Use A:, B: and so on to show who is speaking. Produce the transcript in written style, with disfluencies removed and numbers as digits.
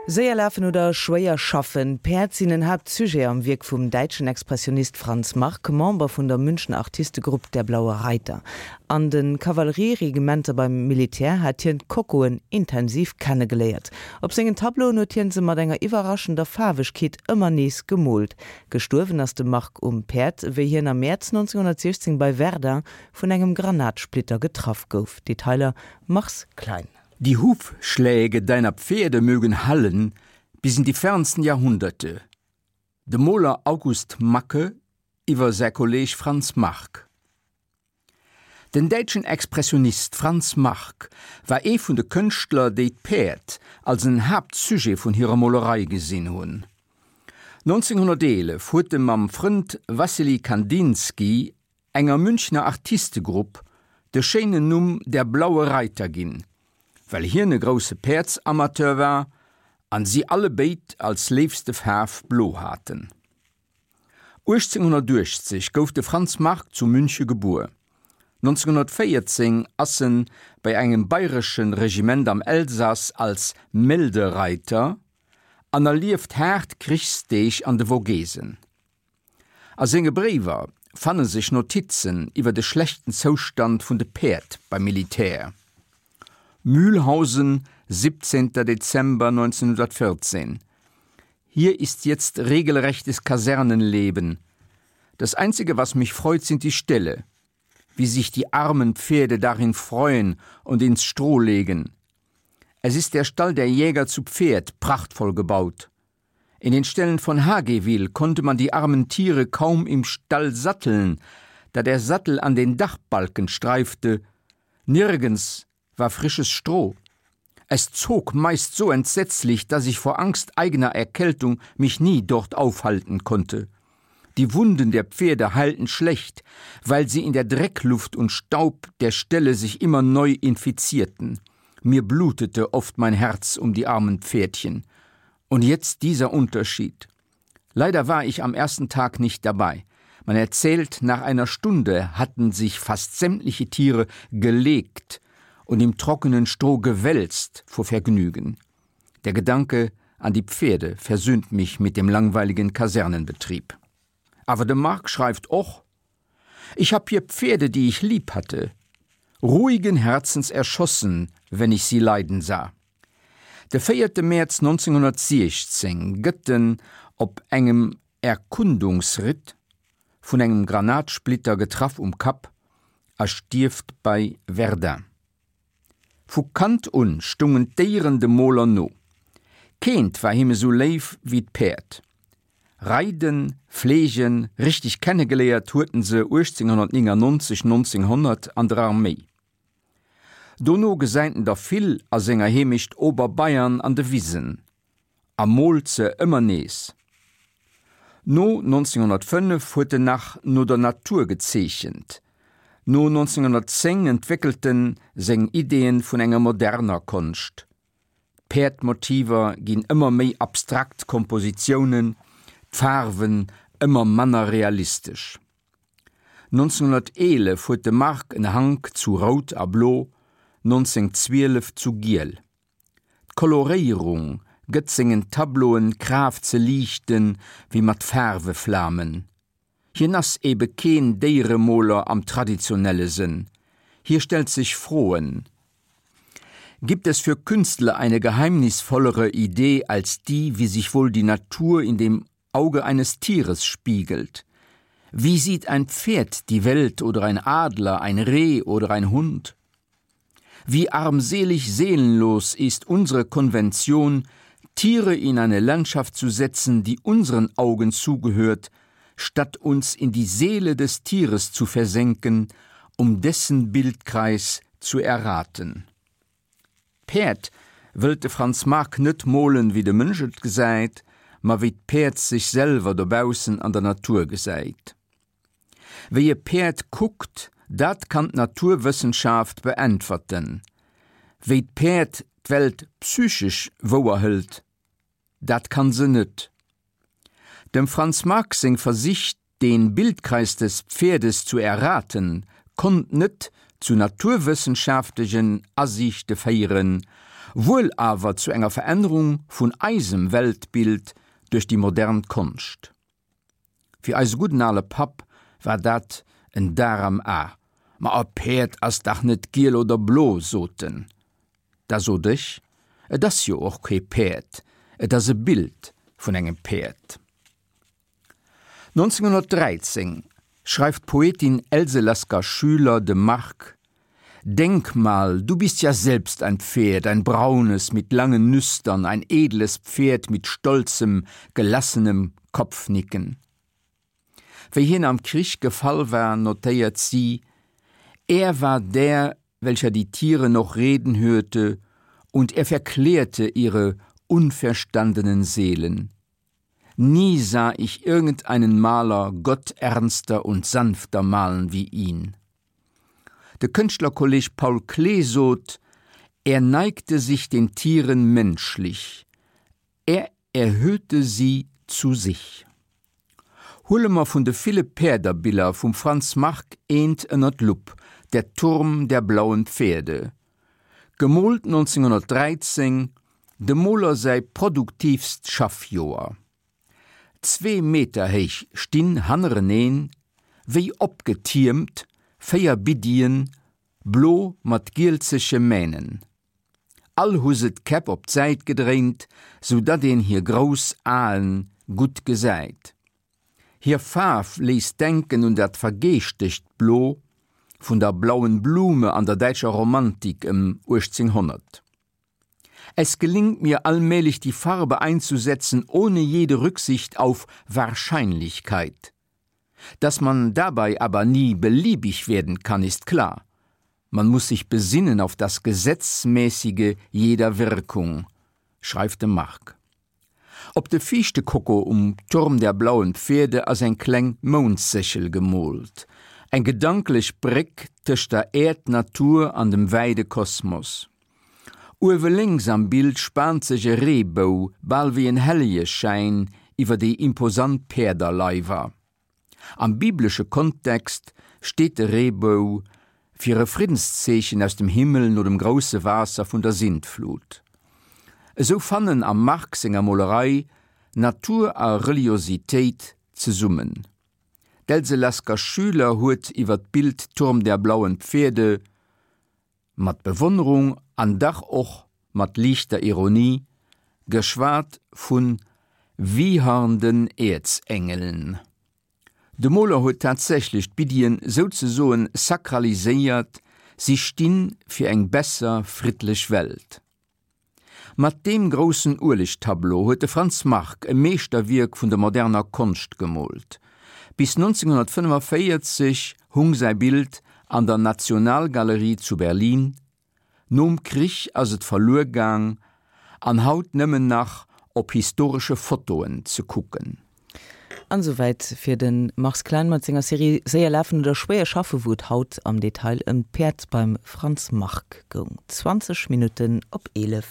A: Séier lafen oder schwéier schaffen, Päerd sinn en Haaptsujet am Wierk vum däitschen Expressionist Franz Marc, Member vun der Münchner Artistegrupp Der Blaue Reiter. An de Kavallerieregimenter beim Militär hat hien d'Kokoen intensiv kennegeléiert. Op sengen Tableauen huet hien se mat enger iwwerraschender Faarwegkeet ëmmer nees gemoolt. Gestuerwen ass de Marc um Päerd, wéi hien am Mäerz 1916 bei Verdun vun engem Granatsplitter getraff gouf. Detailer Mars Klein.
B: Die Hufschläge deiner Pferde mögen hallen bis in die fernsten Jahrhunderte. De Moler August Macke iwwer säi Kolleeg Franz Marc. Den däitschen Expressionist Franz Marc war ee vun de Kënschtler, déi d'Päerd als en Haaptsujet vun hirer Molerei gesinn hunn. 1911 huet e mam Frënd Wassily Kandinsky enger Münchner Artistegrupp de schéinen Numm Der Blaue Reiter ginn, well hien e grousse Päerdsamateur war an si alle béid als léifste Faarf blo haten. 1880 gouf de Franz Marc zu Münche gebuer. 1914 ass en bei engem bayresche Regiment am Elsass als Meldereiter an erlieft haart Krichsdeeg an de Vogesen. A senge Bréiwer fanne sech Notizen iwwer de schlechten Zoustand vun de Päerd beim Militär. Mühlhausen, 17. Dezember 1914 Hier ist jetzt regelrechtes Kasernenleben. Das einzige, was mich freut, sind die Ställe. Wie sich die armen Pferde darin freuen und ins Stroh legen. Es ist der Stall der Jäger zu Pferd prachtvoll gebaut. In den Ställen von Hagewil konnte man die armen Tiere kaum im Stall satteln, da der Sattel an den Dachbalken streifte. Nirgends war frisches Stroh. Es zog meist so entsetzlich, dass ich vor Angst eigener Erkältung mich nie dort aufhalten konnte. Die Wunden der Pferde heilten schlecht, weil sie in der Dreckluft und Staub der Ställe sich immer neu infizierten. Mir blutete oft mein Herz um die armen Pferdchen. Und jetzt dieser Unterschied. Leider war ich am ersten Tag nicht dabei. Man erzählt, nach einer Stunde hatten sich fast sämtliche Tiere gelegt und im trockenen Stroh gewälzt vor Vergnügen. Der Gedanke an die Pferde versöhnt mich mit dem langweiligen Kasernenbetrieb. Aber de Marc schreibt och: Ich hab hier Pferde, die ich lieb hatte, ruhigen Herzens erschossen, wenn ich sie leiden sah. De véierte Mäerz 1916 gëtt en op engem Erkundungsritt vun engem Granatsplitter getraff um Kapp a stierft bei Verdun. Vu Kand un stungen d'Déieren dem Moler no. Keent war him esou léif wéi d'Päerd. Reiden, fleegen, richteg kennegeléiert huet en se 1899, 1900 an der Arméi. Dono gesäit en der vill a senger Heemecht Oberbayern an de Wisen a moolt se ëmmer nees. No 1905 huet en nach no der Natur gezeechent. No 1910 entwéckelt en seng Ideeën vun enger moderner Konscht. D'Päerdmotiver ginn ëmmer méi abstrakt Kompositiounen, d'Faarwen ëmmer manner realistesch. 1911 huet de Marc en Hank zu Rout a Blo, 1912 zu Giel. D'Koloréierung gëtt sengen Tableauen d'Kraaft ze liichten wéi mat Faarweflamen. Hien ass ebe keen Déieremoler am traditionelle Sënn. Hie stellt sech Froen, Gibt es für Künstler eine geheimnisvollere Idee als die, wie sich wohl die Natur in dem Auge eines Tieres spiegelt. Wie sieht ein Pferd die Welt oder ein Adler, ein Reh oder ein Hund? Wie armselig seelenlos ist unsere Konvention, Tiere in eine Landschaft zu setzen, die unseren Augen zugehört, statt uns in die Seele des Tieres zu versenken, um dessen Bildkreis zu erraten. D'Päerd wëllt de Franz Marc net molen, wéi de Mënsch et gesäit, ma wéi d'Päerd sech selwer dobaussen an der Natur gesäit. Wéi e Päerd kuckt, dat kann d'Naturwëssenschaft beäntwerten. Wéi d'Päerd d'Welt psychesch wouerhëlt, dat kann se net. Dem Franz Marc seng Versich den Bildkreis des Pferdes zu erraten, konnt net zu naturwëssenschaftlechen Asiichte féieren. Wuel awer zu enger Verännerung vun eisem Weltbild duerch déi modern Konscht. Fir eise gudden ale Papp war dat en Dar am A. Ma e Päerd ass dach net giel oder blo, sot en. Da sot ech, Et ass jo och kee Päerd, et ass e Bild vun engem Päerd. 1913 schreift d'Poetin Else Lasker-Schüler dem Marc, Denk mal, du bist ja selbst ein Pferd, ein braunes mit langen Nüstern, ein edles Pferd mit stolzem, gelassenem Kopfnicken. Wéi hien am Krich gefall war, notéiert si, Er war der, welcher die Tiere noch reden hörte, und er verklärte ihre unverstandenen Seelen. Nie sah ich irgendeinen Maler gotternster und sanfter malen wie ihn. De Kënschtlerkolleg Paul Klee sot, Er neigte sich den Tieren menschlich, er erhöhte sie zu sich. Huele mer vun de ville Päerderbiller vum Franz Marc eent ënner d'Lupp, Der Turm der blauen Pferde. Gemoolt 1913, dem Moler säi produktiivst Schaffjoer. Zwee Meter héich stinn hannereneen, wéi opgetiermt, 4 Biddien, blo mat gielzege Mähnen. All hu se d'Käpp op d'Säit gedréint, sou datt een hir grouss Aen gutt gesäit. Hir Faarf léisst denken un dat vergeeschtegt Blo vun der Blauen Blume an der däitscher Romantik ëm 1800. Es gelingt mir allmählich die Farbe einzusetzen ohne jede Rücksicht auf Wahrscheinlichkeit. Dass man dabei aber nie beliebig werden kann, ist klar. Man muss sich besinnen auf das Gesetzmäßige jeder Wirkung, schreift de Marc. Op de viischte Koko um Turm der blauen Pferde ass eng kleng Moundséchel gemoolt, eng gedanklech Bréck tëscht der Äerd-Natur an dem wäide Kosmos. Uewe lénks am Bild spaant sech e Reebou, bal wéi en Hellegeschäin, iwwer déi imposant Päerderleiwer. Am biblesche Kontext steet de Reebou fir e Friddenszeechen aus dem Himmel no dem grousse Waasser vun der Sintflut. Esou fannen am Marc senger Molerei Natur a Reliositéit zesummen. D'Else Lasker-Schüler huet iwwer d'Bild Turm der blauen Pferde mat Bewonnerung an dach och mat liichter Ironie geschwat vu wiehernden Äerzengeln. De Moler huet tatsächlech d'Biddien souzesoen sakraliséiert, si sti fir eng besser, friddlech Welt. Mat deem groussen Uelegtableau huet de Franz Marc e Meeschterwierk vun der moderner Konscht gemoolt. Bis 1945 hung säi Bild an der Nationalgalerie zu Berlin. Nom Krich ass et verluer gaang an haut nëmmen nach op historesche Fotoen ze kucken.
A: An esouwäit fir de Mars Klein mat senger Serie Séier lafen oder schwéier schaffen, wou et haut am Detail ëm d'Päerd beim Franz Marc goung. 20 Minutten op 11.